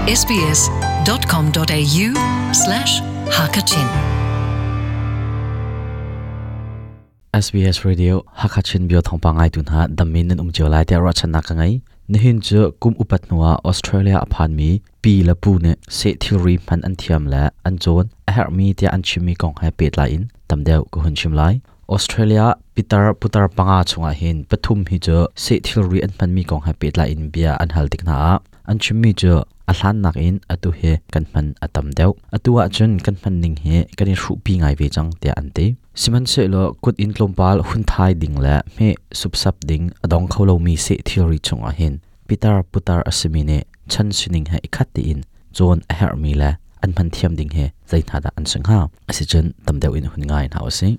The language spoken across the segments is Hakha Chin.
sbs.com.au slash hakachin SBS Radio Hakachin bio thawngpang ngaitu hna dammin nan um cio lai tiah ruahchannak ka ngei. Nihin cu kum upat hnuah Australia a phanmi pi le pu nih seh thilri hman an thiam le an cawn a herhmi tiah an chimmi kong he pehtlai in tam deuh ka hun chim lai. Australia pitar putar panga chungah hin pathum hi cu seh thilri an hmanmi kong he pehtlai in bia an hal tik hna ah an chimmi cu a hlannak in atu hi kan hman a tam deuh. Atu ahcun kan hman ning hi kan i hruhpi ngai ve cang tiah an ti. Sihmanhsehlaw kut in tlawmpal hun thai ding le hmeh supsap ding a dong kho lomi seh thilri chungah hin pitar putar a simi nih chan sining he i khat tein cawn a herhmi le an hman thiam ding hi zei hna dah an si hnga? Asicun tam deuh in hun ngai hna usih.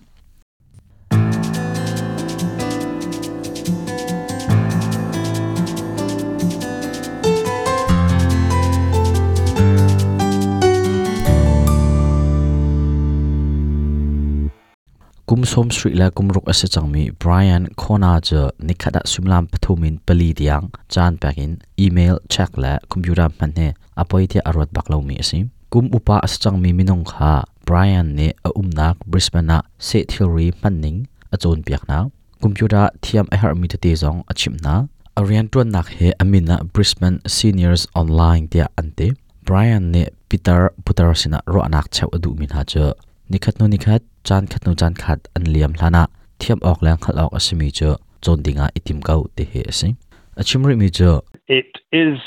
Kum 70 le kum ruk a si cangmi Brian Kona cu nikhat ah suimilam pathum in pali tiang caan pek in email check le computer hman hi a poi tiah a ruat bak lomi a si. Kum upa a si cangmi minung kha Brian nih a umnak Brisbane ah seh thilri hmanning a cawnpiak hna. Computer thiam a herhmi tete zong a chimh hna. A rianṭuannak hi a min ah Brisbane Seniors Online tiah an ti. Brian nih pitar putar sinah ruahnak cheuh a duhmi hna cu nikhat hnu nikhat, caan khat hnu caan khat an liam hlanah thiam awk le hngalh awk a simi cu cawn dingah i tim ko ti hi a si. A chim rihmi cu It is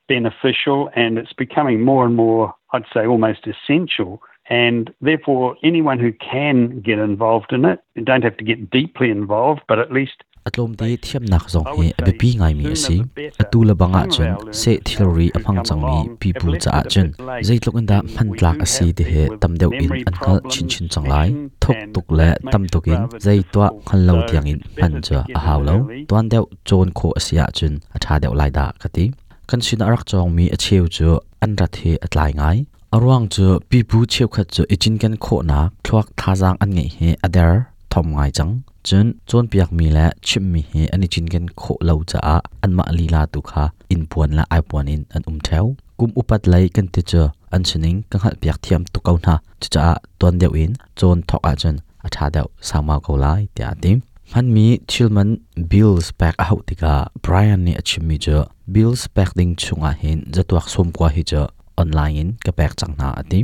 beneficial and it's becoming more and more, I'd say almost essential. And therefore, anyone who can get involved in it, you don't have to get deeply involved, but at least A tlawmte thiamnak zong hi a biapi ngaimi a si. Atu le bang ahcun seh thilri a hmang cangmi pipu caah cun zeitluk in dah hmantlak a si ti hi tam deuh in an hngalh chinchin cang lai. Thuk tuk le tam tuk in zei tuah hngal lo tiangin hman cu a hau lo. Tuan deuh cawn khawh a si ahcun a ṭha deuh lai dah ka ti. Kan sinah a rak cawngmi a cheu cu an rat hi a tlai ngai. A ruang cu pipu cheukhat cu i cinken khawhnak thluak thazaang an ngeih hi a der thom ngai cang. Cun cawnpiakmi le chimhmi hi an i cinken khawh lo caah anmah lila tu kha innpuan le aipuan in an um ṭheo. Kum upat lei kan ti cu an sining ka hngalhpiak thiam tuk ko hna. Cucaah tuan deuh in cawn thawk ahcun a ṭha deuh saumau ko lai tiah a ti. Hmanmi thilman bills pek a hauh tikah Brian nih a chimmi cu bills pek ding chungah hin zatuak sawmkua hi cu online in ka pek cang hna a ti.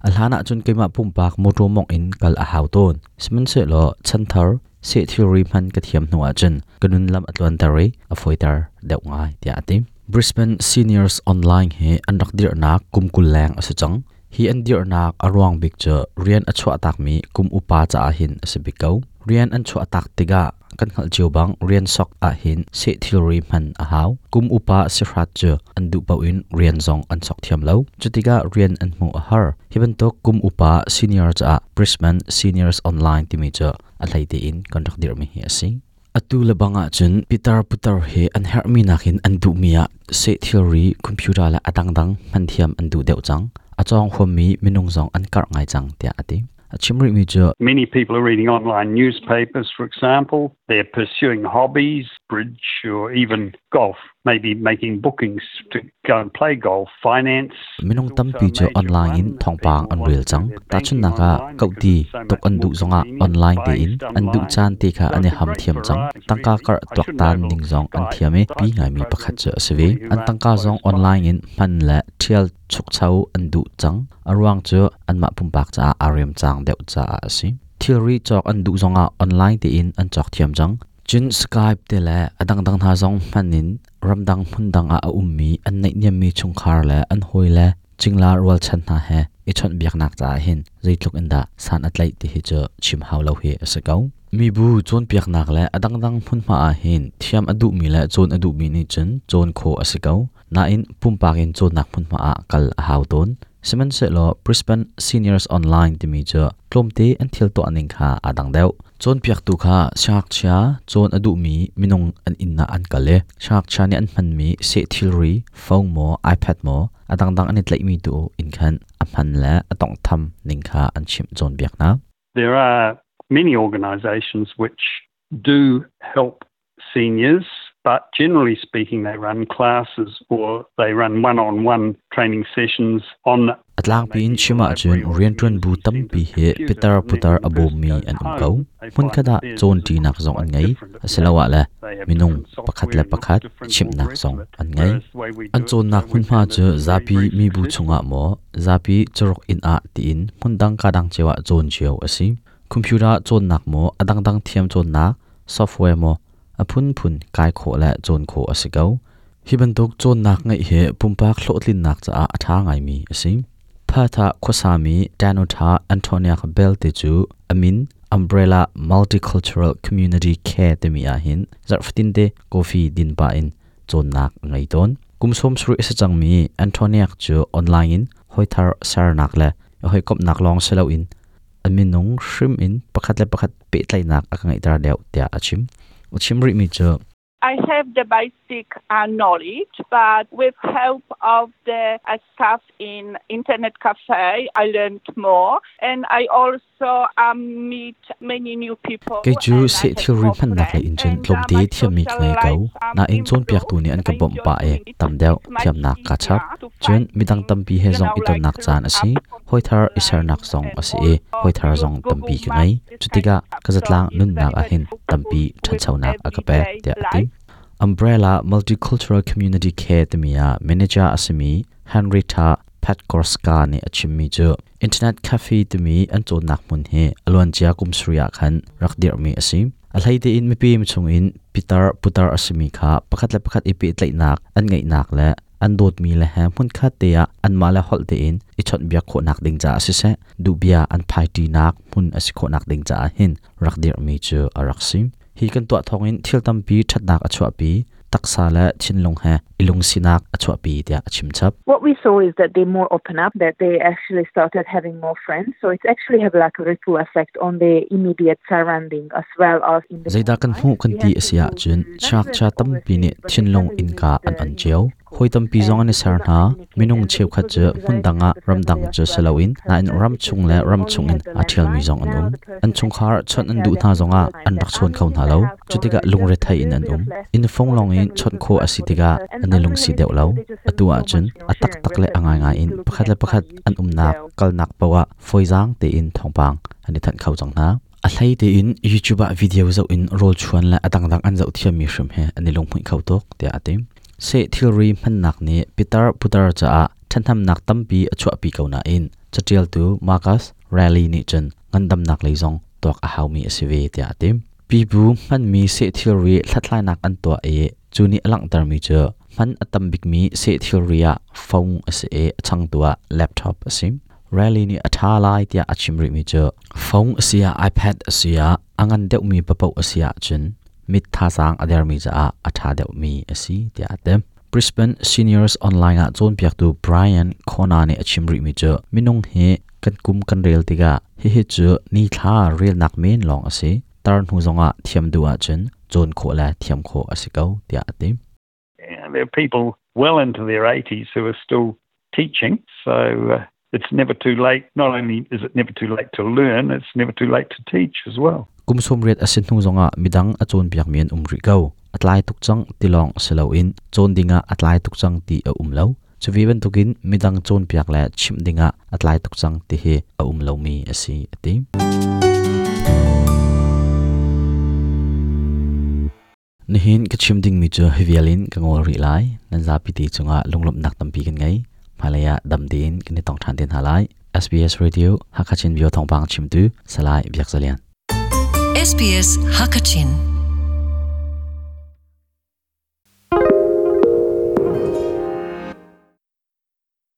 A hlan ahcun keimah pumpak mawṭaw mawngh in kal a hau tawn. Sihmanhsehlaw chanthar seh thilri hman ka thiam hnu ahcun ka nun lam a tluanter i a fawiter deuh ngai tiah a ti. Brisbane Seniors Online hi an rak dirhnak kum 20 leng a si cang. Hi an dirhnak a ruang bik cu rian a chuahtakmi kum upa caah hin a si bik ko. Rian an chuahtak tikah kan hngalh cio bang rian sok ahhin seh thilri hman a hau. Kum upa sihrat cu an duh paoh in rian zong an sok thiam lo. Cutikah rian an hmuh a har. Hi bantuk kum upa senior caah Brisbane Seniors Online timi cu a hlei tein kan rak dirhmi hi a si. Atu le bang ahcun pitar putar hi an herhmi nakin an duhmi ah seh thilri, computer le a dangdang hman thiam an duh deuh cang. A cawng huammi minung zong an karh ngai cang tiah a ti. A chim rihmi cu Many people are reading online newspapers, for example. They're pursuing hobbies, bridge, or even golf, maybe making bookings to go and play golf, finance. Minung tampi cu online in thawngpang an rel cang. Tahchunhnak ah, kohti tuk an duh zongah online tein an duh caan te kha an i ham thiam cang. Tangka karh tuaktan ning zong an thiam i pi ngaimi pakhat cu a si ve. An tangka zong online in hman le ṭhial chukcho an duh cang. A ruang cu anmah pumpak caah aa remcang deuh caah a si. Thilri cawk an duh zongah online tein an cawk thiam cang. Cun Skype te le a dangdang hna zong hman in ramdang hmundang ah a ummi an naihniammi chungkhar le an hawile cingla rualchan hna he i chawnhbiaknak caah hin zeitluk in dah san a tlaih ti hi cu chim hau lo hi a si ko. Mibu cawnpiaknak le a dangdang hmunhma ah hin thiam a duhmi le cawn a duhmi nih cun cawn khawh a si ko. Nain pumpak in cawnnak hmunhma ah kal a hau tawn. Sihmanhsehlaw Brisbane Seniors Online timi cu tlawmte an thil tuah ning kha aa dang deuh. Cawnpiaktu kha siangngakchia cawn a duhmi minung an inn ah an kal i siangngakchia nih an hmanmi seh thilri, phone maw, iPad maw, a dangdang an i tlaihmi tu in khan a hman le a tawnghtham ning kha an chimh cawnpiak hna. There are many organisations which do help seniors. But generally speaking, they run classes or they run one-on-one training sessions on A tlangpi in chim ahcun rianṭuan bu tampi hi pitar putar a bawmmi an um ko. Hmunkhat ah cawnṭinak zong an ngei, asiloah le minung pakhat le pakhat chimhnak zong an ngei. An cawnnak hmunhma cu zapi mibu chungah maw, zapi caruk inn ah tiin hmundang kadang cio ah cawn cio a si. Computer cawnnak maw, a dangdang thiam cawnnak software maw, a phunphun kai khawh le cawn khawh a si ko. Hi bantuk cawnnak ngeih hi pumpak hlawhtlinnak caah a ṭha ngaimi a si. Perth ah khuasami Danuta Antoniak Bell te cu a min Umbrella Multicultural Community Care timi ahhin zarh fatinte coffee din pah in cawnnak a ngei tawn. Kum 70 a si cangmi Antoniak cu online in hawithar sernak le hawikomhnak lawng si loin a minung hrim in pakhat le pakhat pehtlaihnak a ka ngeihter deuh tiah a chim. A chim rihmi cu I have the basic knowledge, but with help of the staff in internet cafe, I learned more. And I also meet many new people. Kei cu seh thilri hmannak lei in cun tlawmte thiammi ka ngei ko. Nain cawnpiaktu nih an ka bawmh pah i tam deuh thiamnak kaa chap. Cun midang tampi he zong i tonnak caan a si. Hawithar i sernak zong a si i hawithar zong tampi ka ngei. Cutikah ka zatlang nunnak ah hin tampi ṭhanchonak a ka pek tiah a ti. Umbrella Multicultural Community Care timi ah manager a simi Henrietta Petkorska nih a chimmi cu Internet Cafe timi an cawnnak hmun hi a luancia kum sarih ah khan rak dirhmi a si. A hlei tein mipim chungin pitar putar a simi kha pakhat le pakhat i pehtlaihnak an ngeihnak le an dawtmi le he hmunkhat te ah anmah le holh tein i chawnhbiak khawhnak ding caah siseh duhbia an phaiṭinak hmun a si khawhnak ding caah hin rak dirhmi cu a rak si. Hi kan tuah thawngin thil tampi ṭhatnak a chuahpi, taksa le thinlung he i lungsinak a chuahpi tiah a chim chap. What we saw is that they more open up, that they actually started having more friends. So it's actually have like a ripple effect on the immediate surrounding as well as in the Zeidah kan hmuh kan ti a si ahcun ngakchia tampi nih thinlung innka an on cio. Hawi tampi zong an i ser hna. Minung cheukhat cu hmundang ah ramdang cu si loin nain ramchung le ramchung in aa ṭhialmi zong an um. An chungkhar chawnh an duh hna zongah an rak chawn kho hna lo. Cutikah lungrethei in an um. Inn fung lawngin chawnh khawh a si tikah an i lungsi deuh lo. Atu ahcun a taktak le a ngaingai in pakhat le pakhat an umnak kalnak paoh ah fawizaang tein thawngpang an i thanh kho cang hna. A hlei tein YouTube ah video zoh in rawl chuan le a dangdang an zoh thiammi hrim he an i lunghmuih kho tuk tiah a ti. Seh thilri hmannak nih pitar putar caah ṭhathnemnak tampi a chuahpi ko nain caṭialtu Marcus Raleigh nih cun ngandamnak lei zong tuak a haumi a si ve tiah a ti. Pipu hmanmi seh thilri hlathlainak an tuah i cu nih a langhtermi cu hman a tam bikmi seh thilri ah phone a si i a changtu ah laptop a si. Raleigh nih a ṭha lai tiah a chim rihmi cu phone a si ah iPad a si ah a ngan deuhmi paoh a si ahcun mit thazaang a dermi caah a ṭha deuhmi a si tiah a ti. Brisbane Seniors Online ah cawnpiaktu Brian Kona nih a chim rihmi cu minung hi kan kum kan rel tikah hihi cu nithla relnak men lawng a si. Tar hnu zongah thiam duh ahcun cawn khawh le thiam khawh a si ko tiah a ti. There are people well into their 80s who are still teaching. So it's never too late. Not only is it never too late to learn, it's never too late to teach as well. Kum 80 a si hnu zongah midang a cawnpiakmi an um rih ko. A tlai tuk cang ti lawng si loin cawn dingah a tlai tuk cang ti a um lo. Cuve bantukin midang cawnpiak le chimh dingah a tlai tuk cang ti hi a um lomi a si, a ti. Nihin ka chim dingmi cu hi vial in ka ngol rih lai. Nan zapi te cungah lunglawmhnak tampi kan ngei. Hmailei ah dam tein kan i tong ṭhan te hna lai. SBS Radio Hakha Chin Bio thawngpang chimtu Salai Biak Zalian. SBS Hakachin.